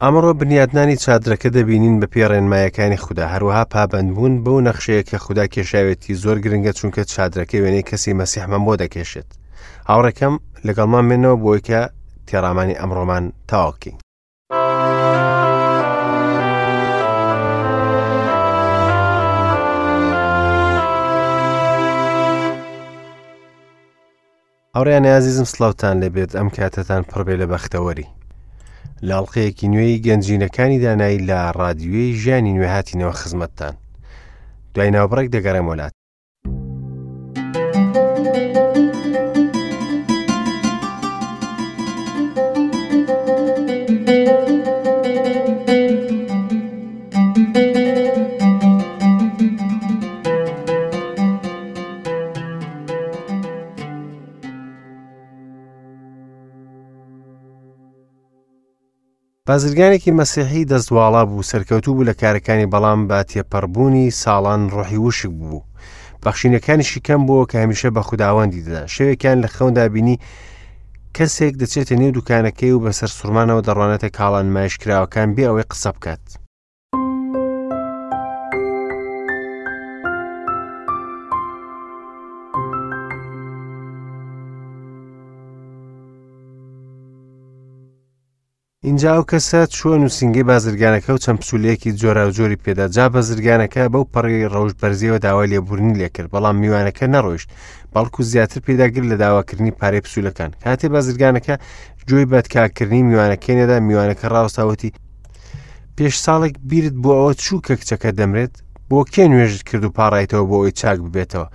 ئەمڕۆ بنیاتنانی چادرەکە دەبینین بە پێی ڕێنمایەکانی خودا، هەروەها پابەندبوون بەو نەخشەیە کە خودا کێشاوێتی زۆر گرنگە چونکە چادرەکە وێنەی کەسی مەسیحمان بۆ دەکێشێت. هاوڕێکەم لەگەڵمان بێنەوە بۆی کە تێڕامانی ئەمڕۆمان تەواو بکەین. هاوڕێیانی ئازیزم سڵاوتان لێبێت ئەم کاتەتان پڕبێ لە بەختەوەری لە ئەڵلقەیەکی نوێی گەنجینەکانی دانایی لە ڕادیوێی ژیانی نوێ هاتینەوە خزمەتتان دوای ناوبڕێک دەگەڕێم وەلات. بازرگانێکی مەسیحی دەست واڵا بوو، سەرکەوتوو بوو لە کارەکانی بەڵام بە تێپەڕبوونی ساڵان ڕۆحی وشک بوو. بەخشینەکانیشی کەم بووە کە هەمیشە بە خوداوەندی دەدا. شەوێکیان لە خەوندا بینی کەسێک دەچێتە نێو دوکانەکەی و بەسەر سوڕمانەوە دەڕوانێتە کاڵا نمایشکراوەکان بێ ئەوەی قسە بکات. ئینجا ئەو کەسە چووە نووسینگەی بازرگانەکە و چەند پسوولەیەکی جۆراوجۆری پێدا جا بازرگانەکە بەو پەڕی ڕەوشت بەرزیەوە داوای لێبوردنی لێکرد بەڵام میوانەکە نەڕۆیشت بەڵکو زیاتر پێداگر لە داواکردنی پارەی پسوولەکان کاتێ بازرگانەکە گوێی بەدکاکردنی میوانەکەی نەدا میوانەکە ڕاوەستاوتی پێش ساڵێک بیرت بۆ ئەوە چوو کە کچەکە دەمرێت بۆ کێ نوێژت کرد و پاڕایتەوە بۆ ئەوی چاک ببێتەوە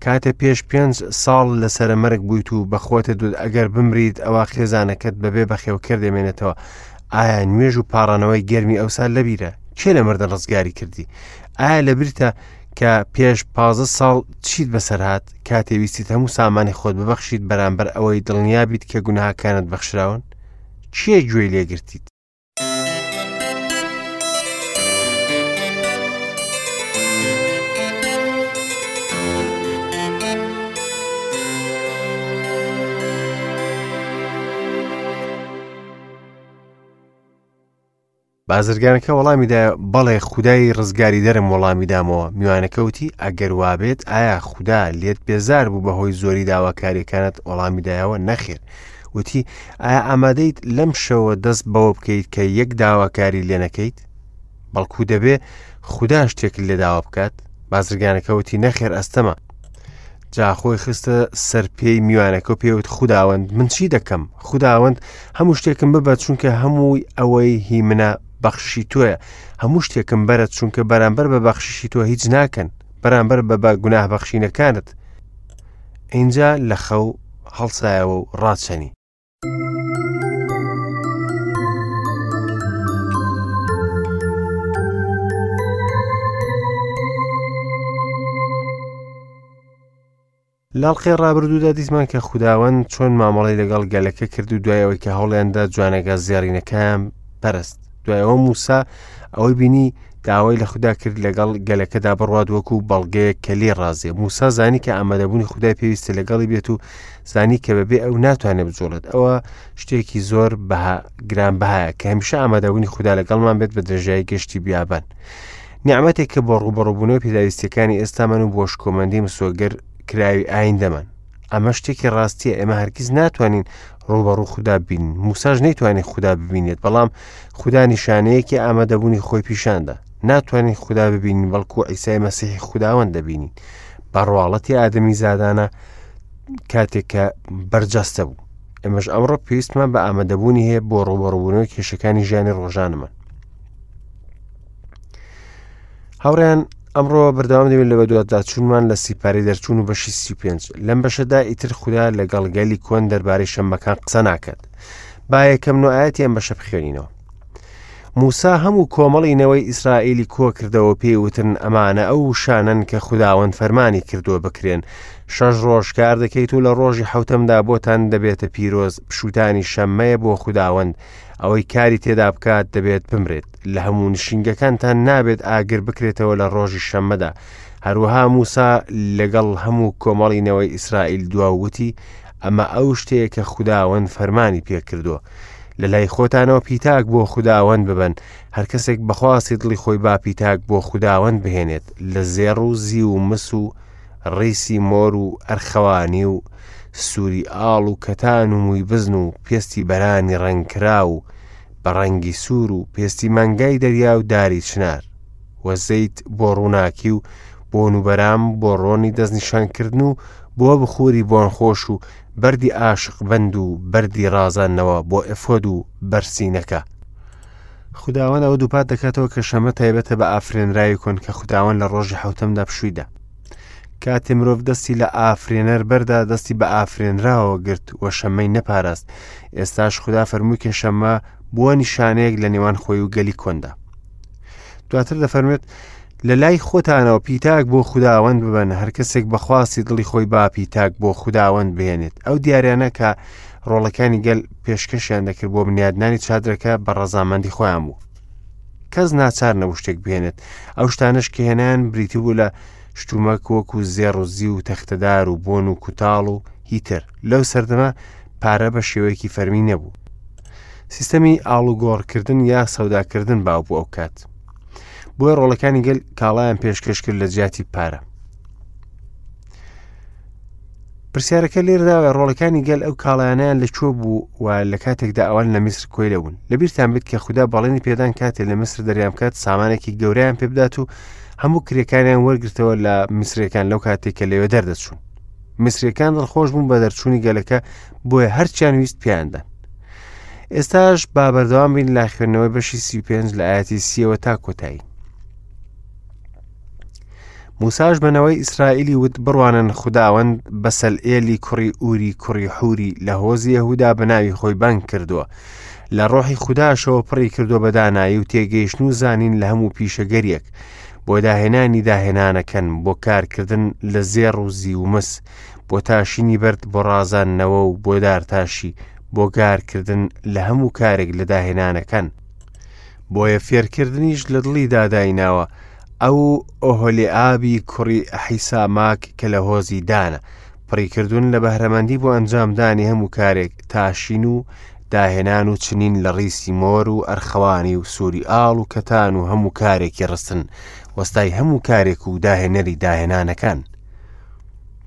کاتێ پێش پێنج ساڵ لە سەرە مەرگ بوویت و بە خۆتە دوت ئەگەر بمریت ئەوە خێزانەکەت بەبێ بەخێوکەر دەمێنێتەوە ئایا نوێژ و پاڕانەوەی گەرمی ئەوسا لەبیرە کێ لە مردن ڕزگاری کردی ئایا لەبیرتە کە پێش پازە ساڵ چیت بەسەر هات کاتێ ویستیت هەموو سامانی خۆت ببەخشیت بەرامبەر ئەوەی دڵنیا بیت کە گوناهەکانت بەخشراون کێ گوێی لێگرتیت بازرگانەکە وەڵامی دایە بەڵێ خودای ڕزگاریدەرم وەڵامی دامەوە میوانەکە وتی ئەگەر وابێت ئایا خودا لێت بێزار بوو بەهۆی زۆری داواکاریەکانت وەڵامی دایەوە نەخێر وتی ئایا ئامادەیت لەم شەوە دەست بەوە بکەیت کە یەک داواکاری لێ نەکەیت بەڵکو دەبێ خودا شتێکت لێ داوا بکات بازرگانەکە وتی نەخێر ئەستەمە جا خۆی خستە سەر پێی میوانەکە و پێوت خوداوەند من چی دەکەم خوداوەند هەموو شتێکم ببە چونکە هەمووی ئەوەی هی منە بەخششی تۆیە هەموو شتێکم بەرە چونکە بەرامبەر بە بەخششی تۆ هیچ ناکەن بەرامبەر بە بە گوناه بەخشینەکانت ئینجا لە خەو هەڵسایەوە و ڕاچەنی. لاڵقەی ڕابردوودا دیتمان کە خوداوەند چۆن مامەڵەی لەگەڵ گەلەکە کرد و دوای ئەوەی کە هەوڵیاندا جوانەگا زێڕینەکەیان پەرست دوای ئەوە موسا ئەوەی بینی داوای لە خودا کرد لەگەڵ گەلەکەدا بڕوات وەکو بەڵگەیەک کە لێ ڕازیە موسا زانی کە ئامادەبوونی خودای پێویستە لەگەڵی بێت و زانی کە بەبێ ئەو ناتوانێت بجوڵێت ئەوە شتێکی زۆر بەها گران بەهایە کە هەمیشە ئامادەبوونی خودا لەگەڵمان بێت بە درێژایی گەشتی بیابان نیعمەتێک کە بۆ ڕووبەڕووبوونەوەی پێداویستیەکانی ئێستامان و بۆ شکۆمەندی مسۆگەر کراوی ئایندەمان ئەمە شتێکی ڕاستیە ئێمە هەرگیز ناتوانین ڕووبەڕوو خودا ببینین موساش نەیتوانی خودا ببینێت بەڵام خودا نیشانەیەکی ئامادەبوونی خۆی پیشاندا ناتوانین خودا ببینین بەڵکو عیسای مەسیحی خوداوەند دەبینین بە ڕواڵەتی ئادەمی زادانە کاتێک کە بەرجەستە بوو ئێمەش ئەمڕۆ پێویستمان بە ئامادەبوونی هەیە بۆ ڕووبەڕووبوونەوەی کێشەکانی ژیانی ڕۆژانەمان هاوڕێیان ئەمڕۆ بەردەوام دەبین لە بەدواداچوونمان لە سیپارەی دەرچوون و بەشی 35 لەم بەشەدا ئیتر خودا لەگەڵ گەلی کۆن دەربارەی شەممەکان قسە ناکات با یەکەم نوعاەتی ئەم بەشە بخوێنینەوە موسا هەموو کۆمەڵی نەوەی ئیسرائیلی کۆ کردەوە پێی وتن ئەمانە ئەو وشانەن کە خوداوەند فەرمانی کردووە بکرێن شەش ڕۆژ کار دەکەیت و لە ڕۆژی حوتەمدا بۆتان دەبێتە پیرۆز پشوتانی شەممەیە بۆ خوداوەند ئەوەی کاری تێدا بکات دەبێت بمرێت لە هەموو نشینگەکانتان نابێت ئاگر بکرێتەوە لە ڕۆژی شەممەدا هەروەها موسا لەگەڵ هەموو کۆمەڵی نەوەی ئیسرائیل دوا وتی ئەمە ئەو شتەیە کە خوداوەند فەرمانی پێکردووە. لە لای خۆتانەوە پیتاک بۆ خوداوەند ببەن، هەر کەسێک بە خواستی دڵی خۆی با پیتاک بۆ خوداوەند بهێنێت، لە زێڕ و زیو و مس و ڕیسی مۆر و ئەرخەوانی و سووری ئاڵ و کەتان و مووی بزن و پێستی بەرانی ڕەنگکراو و بە ڕەنگی سوور و پێستی مانگای دەریا و داری چنار و زەیت بۆ ڕووناکی و بۆن و بەرام بۆ ڕۆنی دەستنیشانکردن و بۆ بخوری بۆنخۆش و بەردی ئاشقبەند و بەردی ڕازاندنەوە بۆ ئێفۆد و بەرسینەکە. خوداوەند ئەوە دووپات دەکاتەوە کە شەمە تایبەتە بە ئافرێنراوی کۆن کە خوداوەند لە ڕۆژی حەوتەمدا پشووی دا. کاتێ مرۆڤ دەستی لە ئافرێنەر بەردا دەستی بە ئافرێنراوە گرت و شەمەی نەپاراست. ئێستاش خودا فەرمووی کە شەمە بووە نیشانەیەک لە نێوان خۆی و گەلی کۆندا. دواتر دەفەرموێت لە لای خۆتانەوە پیتاک بۆ خوداوەند ببەن هەر کەسێک بە خواستی دڵی خۆی با پیتاک بۆ خوداوەند بهێنێت ئەو دیاریانە کە ڕۆڵەکانی گەل پێشکەشیان دەکرد بۆ بنیادنانی چادرەکە بە ڕەزامەندی خۆیان بوو کەس ناچار نەبوو شتێک بهێنێت ئەو شتانش کە هێنان بریتی بوو لە شتومەک وەکو زێڕ و زیو و تەختەدار و بۆن و کوتاڵ و هیتر لەو سەردەمە پارە بە شێوەیەکی فەرمی نەبوو سیستەمی ئاڵوگۆڕکردن یا سەوداکردن باو بوو ئەو کات بۆیە ڕۆڵەکانی گەل کاڵایان پێشکەش کرد لە جیاتی پارە پرسیارەکە لێردا ڕۆڵەکانی گەل ئەو کاڵایانیان لە کوێ بوو و لە کاتێکدا ئەوان لە میسر کۆیلە بوون لەبیرتان بێت کە خودا بەڵێنی پێدان کاتێ لە میسر دەریان بکات سامانێکی گەورەیان پێبدات و هەموو کرێکانیان وەرگرتەوە لە میسرەکان لەو کاتێک کە لەوێ دەردەچوون میسرەکان دڵخۆش بوون بە دەرچوونی گەلەکە بۆیە هەرچیان ویست پێیاندان ئێستاش با بەردەوام بین لە خوێندنەوەی بەشی 35 لە ئاەتی سیەوە تا کۆتایی موساش بەنەوەی ئیسرائیلی وت بڕوانن خوداوەند بەسەلئێلی کوڕی ئوری کوڕی حوری لە هۆزی یەهودا بە ناوی خۆی بانگ کردووە لە ڕۆحی خوداشەوە پڕی کردووە بە دانایی و تێگەیشتن و زانین لە هەموو پیشەگەریەک بۆ داهێنانی داهێنانەکەن بۆ کارکردن لە زێڕ و زیو و مس بۆ تاشینی بەرد بۆ ڕازاندنەوە و بۆ دارتاشی بۆ گارکردن لە هەموو کارێک لە داهێنانەکان بۆیە فێرکردنیش لە دڵیدا دایناوە ئەو ئۆهۆلیئابی کوڕی ئەحیساماک کە لە هۆزی دانە پڕی کردوون لە بەهرەمەندی بۆ ئەنجامدانی هەموو کارێک تاشین و داهێنان و چنین لە ڕیسی مۆر و ئەرخەوانی و سووری ئاڵ و کەتان و هەموو کارێکی ڕستن وەستای هەموو کارێک و داهێنەری داهێنانەکان.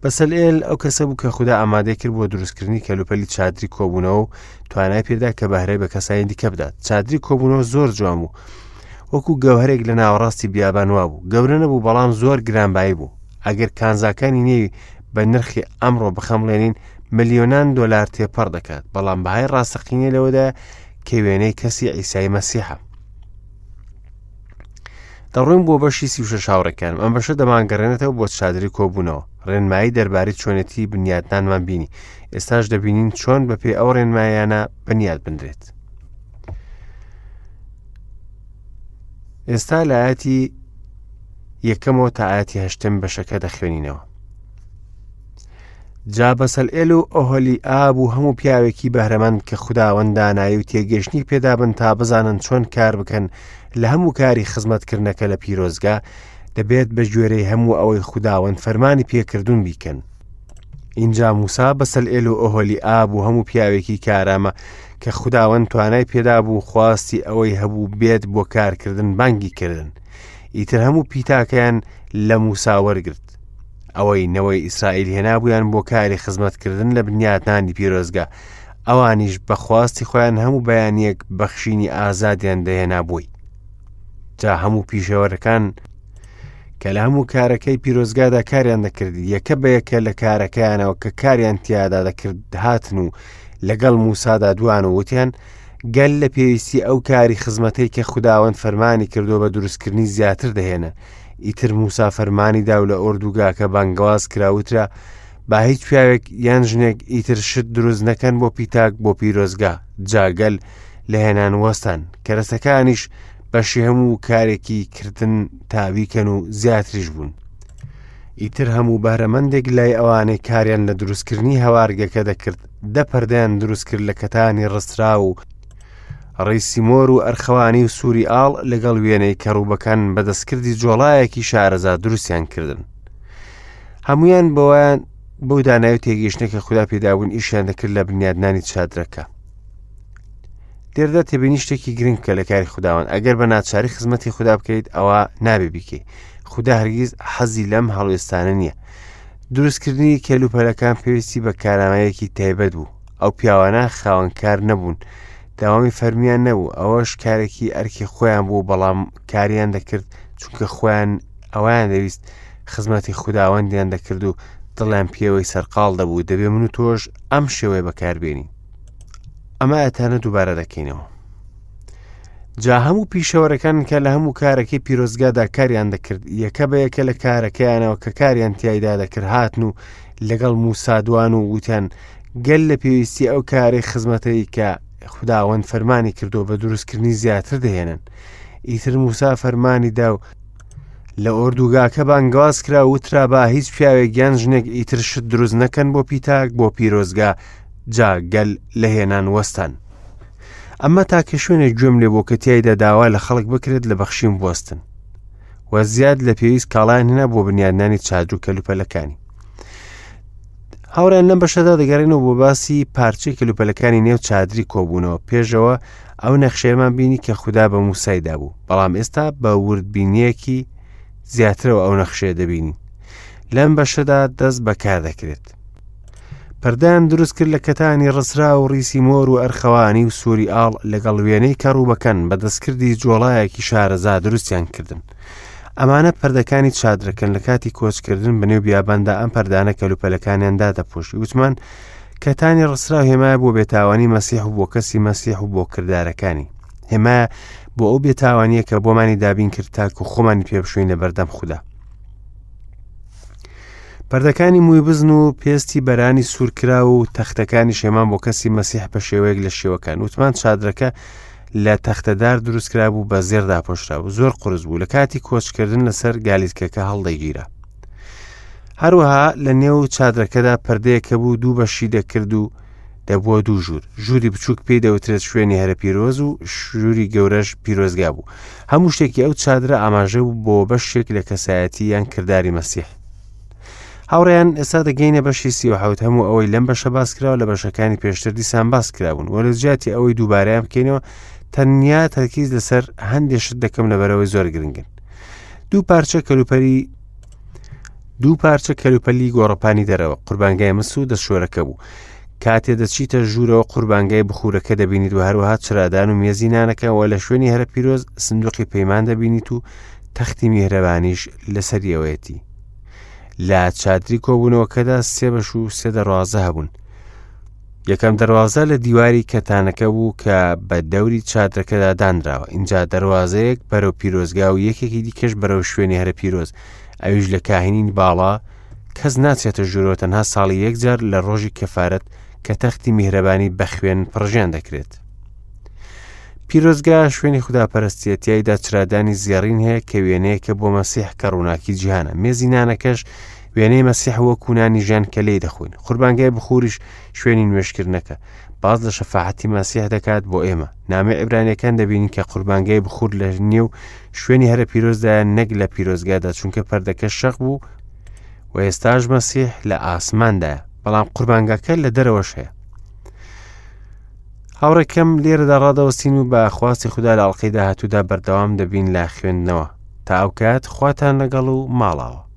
بەسەلئێل ئەو کەسە بوو کە خودا ئامادەی کرد بۆ دروستکردنی کەلوپەلی چادری کۆبوونەوە و توانای پێدا کە بەهرەی بە کەسانی دیکە بدات چادری کۆبوونەوە زۆر جوان بوو وەکو گەوهرێک لە ناوەڕاستی بیابان وابوو گەورە نەبوو بەڵام زۆر گرانبایی بوو ئەگەر کانزاکانی نێوی بە نرخی ئەمڕۆ بخەمڵێنین ملیۆنان دۆلار تێپەڕ دەکات بەڵام بەهای ڕاستەقینە لەوەدا کە وێنەی کەسی ئیسای مەسیحە دەڕۆین بۆ بەشی 36 هاوڕێکانم ئەم بەشە دەمانگەڕێنێتەوە بۆ چادری کۆبوونەوە ڕێنمایی دەربارەی چۆنێتی بنیاتنانمان بینی ئێستاش دەبینین چۆن بەپێی ئەو ڕێنمایانە بنیات بنرێت ئێستا لە ئاەتی یەکەمەوە تا ئاەتی هەشتم بەشەکە دەخوێنینەوە جا بەسەلئێل و ئۆهۆلیئاب و هەموو پیاوێکی بەهرەمەند کە خوداوەند دانایی و تێگەیشتنی پێدابن تا بزانن چۆن کار بکەن لە هەموو کاری خزمەتکردنەکە لە پیرۆزگا، دەبێت بە گوێرەی هەموو ئەوەی خوداوەند فەرمانی پێکردوون بیکەن. ئینجا موسا بەسەلئێل و ئۆهۆلیئاب و هەموو پیاوێکی کارامە کە خوداوەند توانای پێدابوو خواستی ئەوەی هەبوو بێت بۆ کارکردن بانگی کردن. ئیتر هەموو پیتاکەیان لە موسا وەرگرت. ئەوەی نەوەی ئیسرائیل هێنابوویان بۆ کاری خزمەتکردن لە بنیاتنانی پیرۆزگا، ئەوانیش بە خواستی خۆیان هەموو بەیانییەک بەخشینی ئازادیان دەهێنا بۆی. جا هەموو پیشەوەرەکان کە لە هەموو کارەکەی پیرۆزگادا کاریان دەکرد یەکە بە یەکە لە کارەکەیانەوە کە کاریان تیادا دەکرد هاتن و لەگەڵ موسادا دوان و وتیان گەل لە پێویستی ئەو کاری خزمەتەی کە خوداوەند فەرمانی کردووە بە دروستکردنی زیاتر دەهێنن ئیتر موسا فەرمانی دا و لە ئۆردوگاکە بانگەواز کرا وترا با هیچ پیاوێک یان ژنێک ئیتر شت دروست نەکەن بۆ پیتاک بۆ پیرۆزگا جا گەل لە هێنان وەستان کەرەسەکانیش بەشی هەموو کارێکی کردن تاویکەن و زیاتریش بوون ئیتر هەموو بەهرەمەندێک لای ئەوانەی کاریان لە دروستکردنی هەوارگەکە دەکرد دە پەردەیان دروست کرد لە کەتانی ڕستراو و ڕیسی مۆر و ئەرخەوانی و سووری ئاڵ لەگەڵ وێنەی کەڕوبەکان بە دەستکردی جۆڵایەکی شارەزا دروستیان کردن. هەمویان بەوەیان بەو دانای و تێگەیشتنە کە خودا پێدابوون ئیشیان دەکرد لە بنیادنانی چادرەکە. لێرەدا تێبینی شتێکی گرنگ بکە لە کاری خوداوەند ئەگەر بە ناچاری خزمەتی خودا بکەیت ئەوە نابێ بیکەی خودا هەرگیز حەزی لەم هەڵوێستانە نییە دروستکردنی کەلوپەلەکان پێویستی بە کارامەیەکی تایبەت بوو ئەو پیاوانە خاوەنکار نەبوون داوامی فەرمیان نەبوو ئەوەش کارێکی ئەرکی خۆیان بوو بەڵام کاریان دەکرد چونکە خۆیان ئەویان دەویست خزمەتی خوداوەندیان دەکرد و دڵیان پێوەی سەرقاڵ دەبوو دەبێ من و تۆش ئەم شێوەیە بەکاربێنین ئەمە ئەتانە دووبارە دەکەینەوە جا هەموو پیشەوەرەکان کە لە هەموو کارەکەی پیرۆزگادا کاریان دەکرد یەکە بە یەکە لە کارەکەیانەوە کە کاریان تایدا دەکرد هاتن و لەگەڵ موسادوان و وتیان گەل لە پێویستی ئەو کارەی خزمەتەی کە خوداوەند فەرمانی کردو بە دروستکردنی زیاتر دەهێنن ئیتر موسا فەرمانی دا و لە ئۆردوگاکە بانگەواز کرا وترا با هیچ پیاوێک یان ژنێک ئیتر شت دروست نەکەن بۆ پیتاک بۆ پیرۆزگا جا گەل لە هێنان وەستان. ئەمە تاکە شوێنێک گوێم لێ بۆ کە تیایدا داوا لە خەڵک بکرێت لە بەخشین بوەستن و زیاد لە پێویست کاڵایان هێنا بۆ بنیادنانی چادر و کەلوپەلەکانی. هاوڕێن لەم بەشەدا دەگەڕێنەوە بۆ باسی پارچەی کەلوپەلەکانی نێو چادری کۆبوونەوە پێشەوە ئەو نەخشەیەمان بینی کە خودا بە موسای دابوو بەڵام ئێستا بە وردبینیەکی زیاترەوە ئەو نەخشەیە دەبینین لەم بەشەدا دەست بەکار دەکرێت پەردەیان دروست کرد لە کەتانی ڕسرا و ڕیسی مۆر و ئەرخەوانی و سووری ئاڵ لەگەڵ وێنەی کەڕوبەکەن بە دەستکردی جۆڵایەکی شارەزا دروستیان کردن. ئەمانە پەردەکانی چادرەکەن لە کاتی کۆچکردن بە نێو بیاباندا ئەم پەردانە کەلوپەلەکانیان دادەپۆشی وتمان کەتانی ڕسرا هێمایە بۆ بێتاوانی مەسیح و بۆ کەسی مەسیح و بۆ کردارەکانی هێمایە بۆ ئەو بێتاوانیە کە بۆمانی دابین کرد تاکو خۆمانی پێبشوین لە بەردەم خودا. پەردەکانی مووی بزن و پێستی بەرانی سوورکرا و تەختەکانی شێمان بۆ کەسی مەسیح بە شێوەیەک لە شێوەکان وتمان چادرەکە لە تەختەدار دروستکرا بوو بە زێر داپۆشرا و زۆر قرس بوو لە کاتی کۆچکردن لەسەر گالیسکەکە هەڵدەگیرا هەروەها لە نێو چادرەکەدا پردەیەکە بوو دوو بەشی دەکرد و دەبووە دوو ژوور ژووری بچووک پێی دەوترێت شوێنی هەرە پیرۆز و ژووری گەورەش پیرۆزگا بوو هەموو شتێکی ئەو چادرە ئاماژە بوو بۆ بەشێک لە کەسایەتی یان کرداری مەسیح هاوڕێیان ئێستا دەگەینە بەشی 37 هەموو ئەوەی لەم بەشە باس کراوە لە بەشەکانی پێشتر دیسان باس کرابوون وە لە جیاتی ئەوەی دووبارەیان بکەینەوە تەنیا تەرکیز لەسەر هەندێک شت دەکەم لەبەرەوەی زۆر گرنگن دوو پارچە کەلوپەری دوو پارچە کەلوپەلی گۆڕەپانی دەرەوە قوربانگای مس و دەستشۆرەکە بوو کاتێ دەچیتە ژوورەوە قوربانگای بخورەکە دەبینیت و هەروەها چرادان و مێزی نانەکە و لە شوێنی هەرە پیرۆز سندوقی پەیمان دەبینیت و تەختی میهرەبانیش لەسەریەوەیەتی لە چادری کۆبوونەوەکەدا سێ بەش و سێ دەروازە هەبوون یەکەم دەروازە لە دیواری کەتانەکە بوو کە بە دەوری چادرەکەدا دانراوە ئینجا دەروازەیەک بەرەو پیرۆزگا و یەکێکی دیکەش بەرەو شوێنی هەرە پیرۆز ئەویش لە کاهینی باڵا کەس ناچێتە ژوورەوە تەنها ساڵی یەک جار لە ڕۆژی کەفارەت کە تەختی میهرەبانی بە خوێن پڕژێن دەکرێت. پیرۆزگا شوێنی خوداپەرستیە تیایدا چرادانی زێڕین هەیە کە وێنەیەکە بۆ مەسیح کە ڕووناکی جیهانە مێزی نانەکەش وێنەی مەسیح وەکو نانی ژیان کە لێی دەخۆین قوربانگای بخوریش شوێنی نوێژکردنەکە باز لە شەفاعەتی مەسیح دەکات بۆ ئێمە نامەی عیبرانیەکان دەبینین کە قوربانگای بخور لە نێو شوێنی هەرە پیرۆزدایە نەک لە پیرۆزگادا چونکە پەردەکە شەق بوو و ئێستاش مەسیح لە ئاسماندایە بەڵام قوربانگاکە لە دەرەوەش هەیە هاوڕێکەم لێرەدا ڕادەوەستین و بە خواستی خودا لە ئەڵلقەی داهاتوودا بەردەوام دەبین لە خوێندنەوە تا ئەو کات خواتان لەگەڵ و ماڵاوە.